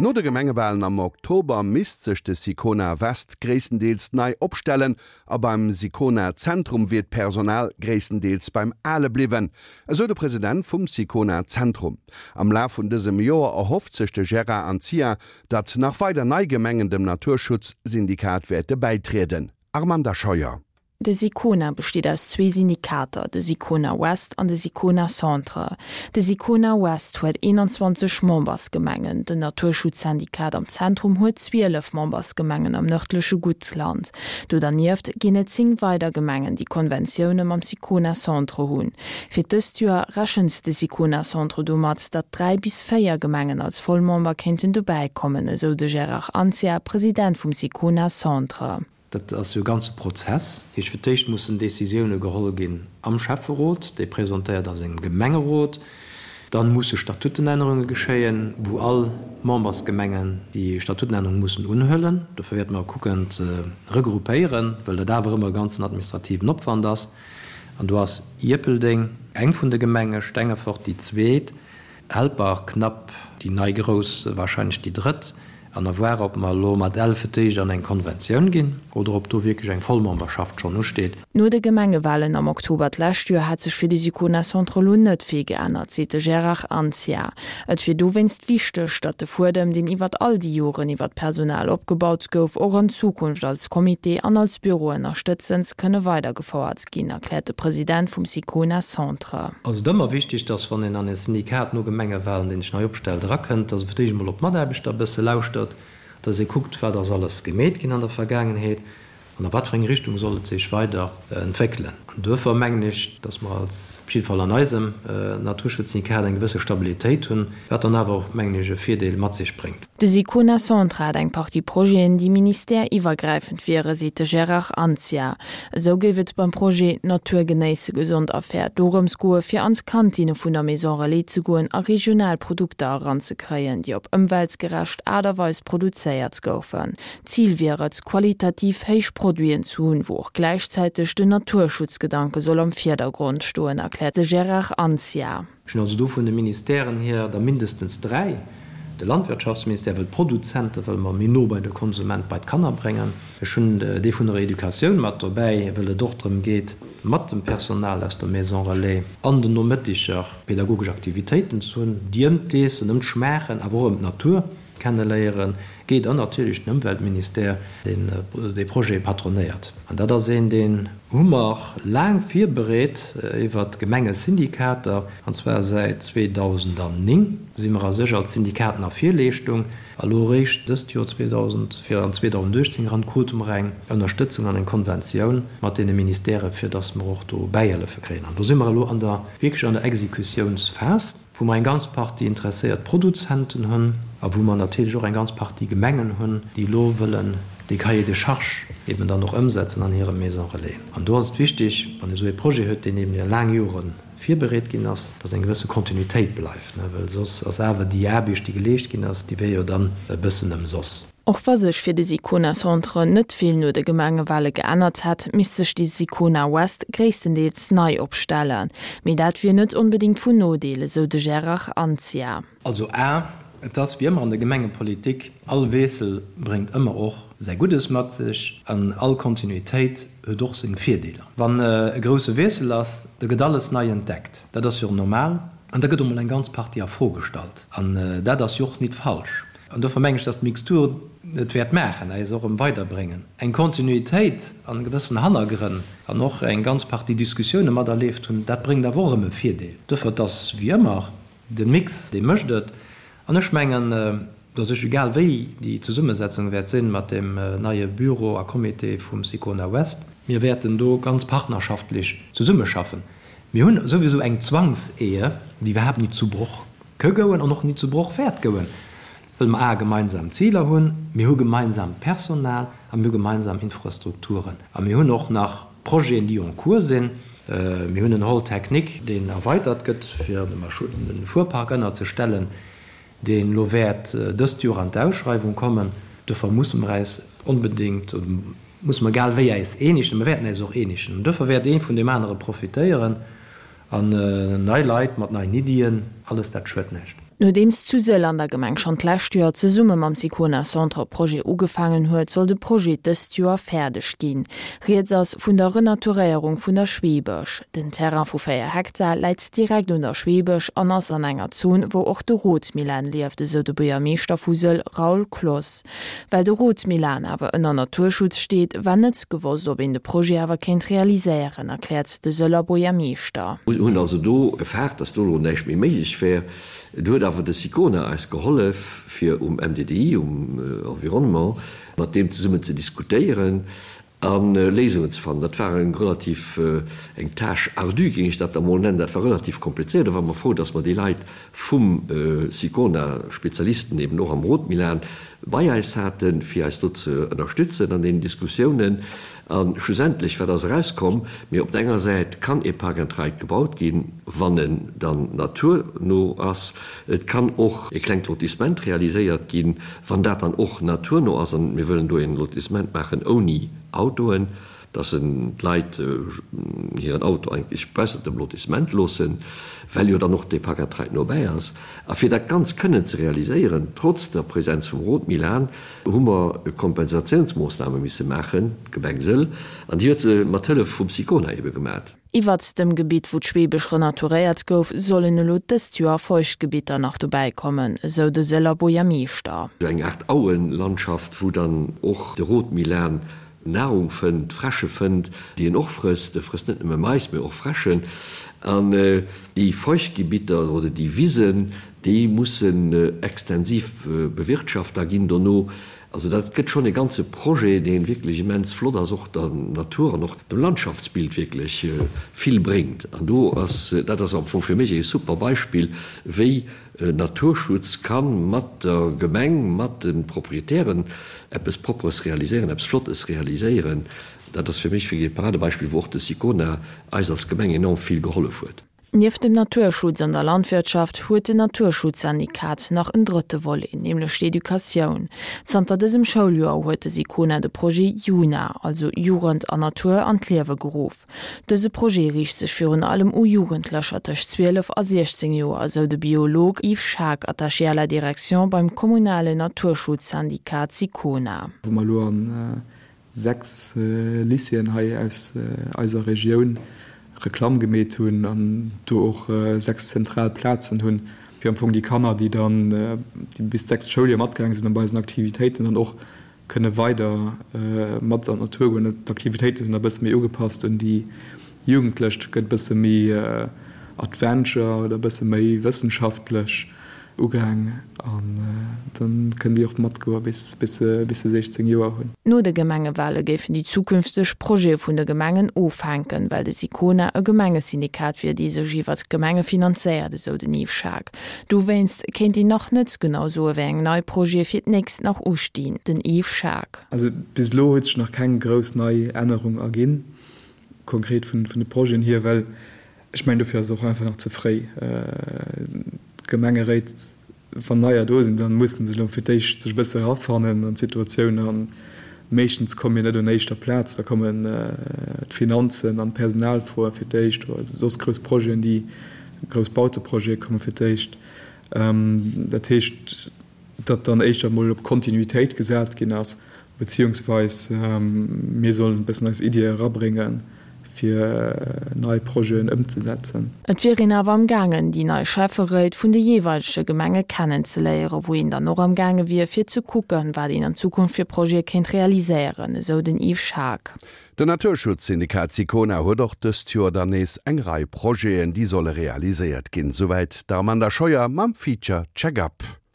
No de Gemengewalen am Oktober misst sech de Sicona West gréisstendeels nei opstellen a beim Sicona Zentrum wier d'Personal gréisstendeels beim Ale bliwwen, esou de President vum Sicona Zentrum. Am Laf vun dësem Joer erhofft sech de Gérard Anzia, datt nach weider nei Gemengen dem Naturschutzsyndikat wäerte bäitrieden. Armanda Scheuer. De Sicona besteet aus zwee Syndikater, de Sicona Ouest an de Sicona Centre. De Sicona Ouest huet 21 Membersgemengen, den Naturschutzsyndikat am Zentrum huet 12 Membersgemengen am nërdleche Guttland. Do dernieft ginn et 10 weider Gemengen, déi Konventioune mam Sicona Centre hunn. Fir dëst Joer rechent de Sicona Centre domat, datt 3 bis 4 Gemengen als Vollmember kéinten dobäi kommen, esou de Gérard Anzia, President vum Sicona Centre. Dat ass jo e ganze Prozess. Dat heescht, fir d'éischt mussen Décisioune geholl ginn am Schäfferot, dee presentéiert a sengem Gemengerot. Dann musse Statutenännerunge geschéien, wou all Membersgemengen déi Statutenännerung mussen unhuelen. Dofir wäerte mer kucken ze regroupéieren, well dat awer ëmmer e ganzen administrativen Opwand ass. An do ass Ierpeldeng eng vun de Gemenge, Stengefort déi zweet. Helper, knapp déi nei grouss, wahrscheinlech déi drëtt, an à voir, ob mer elo mat Ell fir d'éischt an eng Konventioun ginn oder ob do wierklech eng Vollmemberschaft schonn usteet. No de Gemengewalen am Oktober d'lescht Joer hätt sech fir de Sicona Centre elo net vill geännert, seet de Gérard Anzia. Et wier dowéinst wichteg, datt de Fuedem, deen iwwert all déi Joren iwwer d'Personal opgebaut gouf, och an Zukunft als Comité an als Büro ënnerstëtzend kënne weidergefouert ginn, erkläert de President vum Sicona Centre. Ass et ëmmer wichteg, dass wann een an e Syndikat no Gemengewahlen, deen sech nei opstellt, erakënnt, dass e fir d'éischt emol op d'Mataarbechter e bësse lauschtert, dass ee kuckt, wat ass alles gemeet ginn an der Vergaangenheet an a wat fir eng Richtung soll et sech weider entwéckelen. An duerfir mengen ech, dass mer als, op jidde Fall an eisem Naturschutzsyndikat, eng gewësse Stabilitéit hunn, wat dann awer och, mengen ech, e Virdeel mat sech bréngt. De Sicona Centre hat eng Partie Projeten, déi ministère-iwwergräifend wieren, seet de Gérard Anzia. Esou géif et beim Projet Natur genéisse, gesond a fair dorëms goe fir an d'Kantinne vun der Maison Relais ze goen a regional Produkter eranzekréien, déi op ëmweltgerecht Aart a Weis produzéiert goufen. Zil wier et, qualitativ héich Produiten ze hunn, wou och gläichzäiteg den Naturschutzgedanke soll am Virdergrond stoen, erkläert de Gérard Anzia. Ech hunn also do vun de Ministèren hier der mindestens dräi. De Landwirtschaftsministère wëll d'Produzente wëlle mer méi no bei de Konsument, bei d'Kanner bréngen. Ech hunn dee vun der Educatioun mat dobäi, wëll et och drëm geet, mat dem Personal aus der Maison Relais an den Nomëttiger pedagogesch Aktivitéiten ze hunn, déi ëm d'Eessen, ëm d'Schmaachen, awer och ëm d'Natur kenneléieren geet an natierlech den Ëmweltministère, deen dee Projet patronéiert. An dat ass een, deen hu mer laang virbereet iwwert d'Gemengesyndikater, an zwar säit 2009 si mer a sech als Syndikaten a Virleeschtung. A lo eréischt dëst Joer 2000, fir an 2018 eran, krute mer eng Ënnerstëtzung an eng Konventioun mat deene Ministèrë fir datt mer och do Bäihëllefe kréien. An do si mer elo an der, wierklech an der Exekutiounsphas. wou mer eng ganz Partie interesséiert Produzenten hunn a wou mer natierlech och eng ganz Partie Gemengen hunn, déi elo wëllen dee Cahier de charges eben dann och ëmsetzen an hire Maisons relais. An do ass et wichtig, wann ee esou ee Projet huet, deen eben iwwer laang Jore virbereet ginn ass, dass eng gewësse Kontinuitéit bleift, well soss ass awer déi Aarbecht, déi geleescht ginn ass, déi wier jo dann e bëssen ëmsoss. Och wa sech fir de Sicona Centre net vill no de Gemengewale geännert hätt, misst sech de Sicona West gréisstendeels nei opstellen. Mee dat wier net onbedéngt vun Nodeel, esou de Gérard Anzia. Also a, et ass wéi ëmmer an der Gemengepolitik, all Wiessel bréngt ëmmer och säi Guddes mat sech an all Kontinuitéit huet och seng Virdeeler. Wann e grousse Wiessel ass, da gëtt alles nei entdeckt, dat ass jo normal, an da gëtt och mol eng ganz Partie a Fro gestallt an dat ass jo och nit falsch. An dofir mengen ech, dass d'Mixtur et wäert maachen, äis och erëm weiderbréngen. Eng Kontinuitéit an gewëssen Hannergrënn an och eng ganz Partie Diskussioune materlieft hunn, dat bréngt awer och erëm e Virdeel. Dofir, et ass wéi ëmmer, de Mix, dee mécht et. An ech mengen, dass ech, egal wéi déi Zesummesetzung wäert sinn mat deem neie Büro a Comité vum Sicona West, mir wäerten do ganz partnerschaftlech zesummeschaffen. Mir hunn souwisou eng Zwangsehe, déi iwwerhaapt nit zu Broch Ke gouen an och ni zu Broch wäert gouen, wëll mer a gemeinsam Ziler hunn, mir hu gemeinsaamt Personal a mir hu gemeinsam Infrastrukturen a mir hunn och nach Projeten, déi en cours sinn. Mir hunn en Hall technique, deen erweitert gëtt, fir de Fuerpark ënnerzestellen, deen elo wäert dëst Joer an d'Ausschreiwung kommen. Dofir musse mer äis onbedéngt, oder musse mer egal wéi äis eenegen, mer wäerten äis och eenegen, an dofir wäert ee vun deem anere profitéieren. An nei Leit mat neien Iddien, alles dat schued näischt. Nodeems zu Sëll an der Gemeng schonn d'lescht Joer zesumme mam Sicona Centre Projet ugefaangen huet, soll de Projet dëst Joer fäerdeg ginn. Rieds ass vun der Renaturéierung vun der Schweebech. Den Terrain vu 4 Hektar läit direkt un der Schweebech an ass an enger Zon, wou och de Rotmilan lieft, esou de Buergermeeschter vu Sëll Raoul Cloos. Well de Rotmilan awer ënner Naturschutz steet, war net gewosst, ob een de Projet awer kéint realiséieren, erkläert de Sëller Buergermeeschter. Mir hunn also do gefaart, dass do elo näischt méi méiglech wär. Do huet awer de Sicona eis gehollef, fir um MDDI, um Environnement, mat deem zesummen ze diskutéieren a Léisungen ze fannen. Dat war eng relativ, eng Tâche ardue, géing ech dat da mol nennen. Dat war relativ komplizéiert. Do ware mer frou, dass mer déi Leit vum Sicona, Spezialisten eben och am Rotmilan, bei eis haten, fir eis do ze ënnerstützen an deenen Diskussiounen. A schlussendlech, wat ass erauskomm? Mee op der enger Säit kann ee Park and Ride gebaut ginn, wann en dann naturno ass. Et kann och e klengt Lotissement realiséiert ginn, wann dat dann och naturno ass. An mir wëllen do e Lotissement maachen ouni Autoen, dass en d'Leit hiren Auto eigentlech baussent dem Lotissement loossen, well jo dann och dee Park and Ride nobäi ass. A fir dat Ganzt kënnen ze realiséieren, trotz der Präsenz vum Rotmilan, hu mer Kompensatiounsmoossname misse maachen, d'Gemeng Sëll, an déi huet se mat Hëllef vum Sicona ebe gemat. Iwwert dem Gebitt, wou d'Schweebech renaturéiert gouf, sollen elo dëst Joer Feuchtgebitter nach dobäi kommen, esou de Sëller Buergermeeschter. Esou eng Aart Auenlandschaft, wou dann och de Rotmilan Nahrung fënnt, Fräsche fënnt, déi en och frësst. E frësst net nëmme Mais, mee och Fräschen. An déi Feuchtgebitter oder déi Wisen, déi mussen extensiv bewirtschaft da ginn dono. Also dat gëtt schonn e ganze Projet, dee wierklech immens flott ass, och der Natur an och dem Landschaftsbild wierklech vill bréngt. An do ass, dat ass am Fong fir mech e super Beispill, wéi Naturschutz ka mat der Gemeng, mat de Proprietären eppes Propperes realiséieren, eppes Flottes realiséieren. Dat ass fir mech wierklech e Paradebeispill, wou och de Sicona eis als Gemeng enorm vill gehollef huet. Nieft dem Naturschutz an der Landwirtschaft huet den Naturschutzsyndikat nach en drëtte Volet, nämlech d'Educatioun. Zanter dësem Schouljoer huet de Sicona de Projet Juna, also Jugend an Natur, an d'Liewe geruff. Dëse Projet riicht sech virun allem u Jugendlecher tëscht 12 a 16 Joer, esou de Biolog Yves Schaack, Attaché à la direction beim kommunalen Naturschutzsyndikat Sicona. Wou mer elo an 6 Lycéeën hei aus eiser Regioun Reklamm gemeet hunn an do och 6 zentral Plazen hunn, fir am Fong déi Kanner, déi dann déi bis d'sechst Schouljoer matgaange sinn an bei eisen Aktivitéiten dann och kënne weider mat an d'Natur goen. D'Aktivitéite sinn da bësse méi ugepasst un déi Jugendlech, et gëtt bësse méi Adventure oder bësse méi wëssenschaftlech. Ugaang an dann kënnen déi och matgoe bis bis se 16 Joer hunn. No de Gemengewale géifen déi zukünfteg Projete vun de Gemengen ofhänken, well de Sicona e Gemengesyndikat wier, dee sech iwwert d'Gemenge finanzéiert, esou den Yves Schaack. Dowéinst kéint een nach net genau soe wéi eng nei Projete fir d'nächst nach ustinn. Den Yves Schaack. Also bis elo huet sech nach keng grouss nei Ännerung erginn, konkret vun de Projeten hier, well Ech mengen, dofir ass et och einfach nach ze fréi. D'Gemengeréit, wann neier do sinn, da mussen se elo fir d'éischt sech e bësse erafannen an d'Situatioun. A meeschtens komme mir net un éischter Plaz, da kommen d'Finanzen an d'Personalfroe fir d'éischt oder soss grouss Projeten, déi grouss Bauteprojete komme fir d'éischt. Dat heescht, datt dann éischter emol op Kontinuitéit gesat ginn ass, beziehungsweis mir sollen e bëssen eis Iddie erabréngen, fir nei Projeten ëmzesetzen. Et wier een awer am gaangen, déi nei Schäfferéit vun de jeeweilege Gemenge kennenzeléieren, wou een dann och am gaange wier, fir ze kucken, wat een an Zukunft fir Projete kéint realiséieren, esou den Yves Schaack. Den Naturschutzsyndikat Sicona huet och dëst Joer dann nees eng Rei Projeten, déi solle realiséiert ginn. Souwäit d'Armanda Scheuer mam Feature Check-up.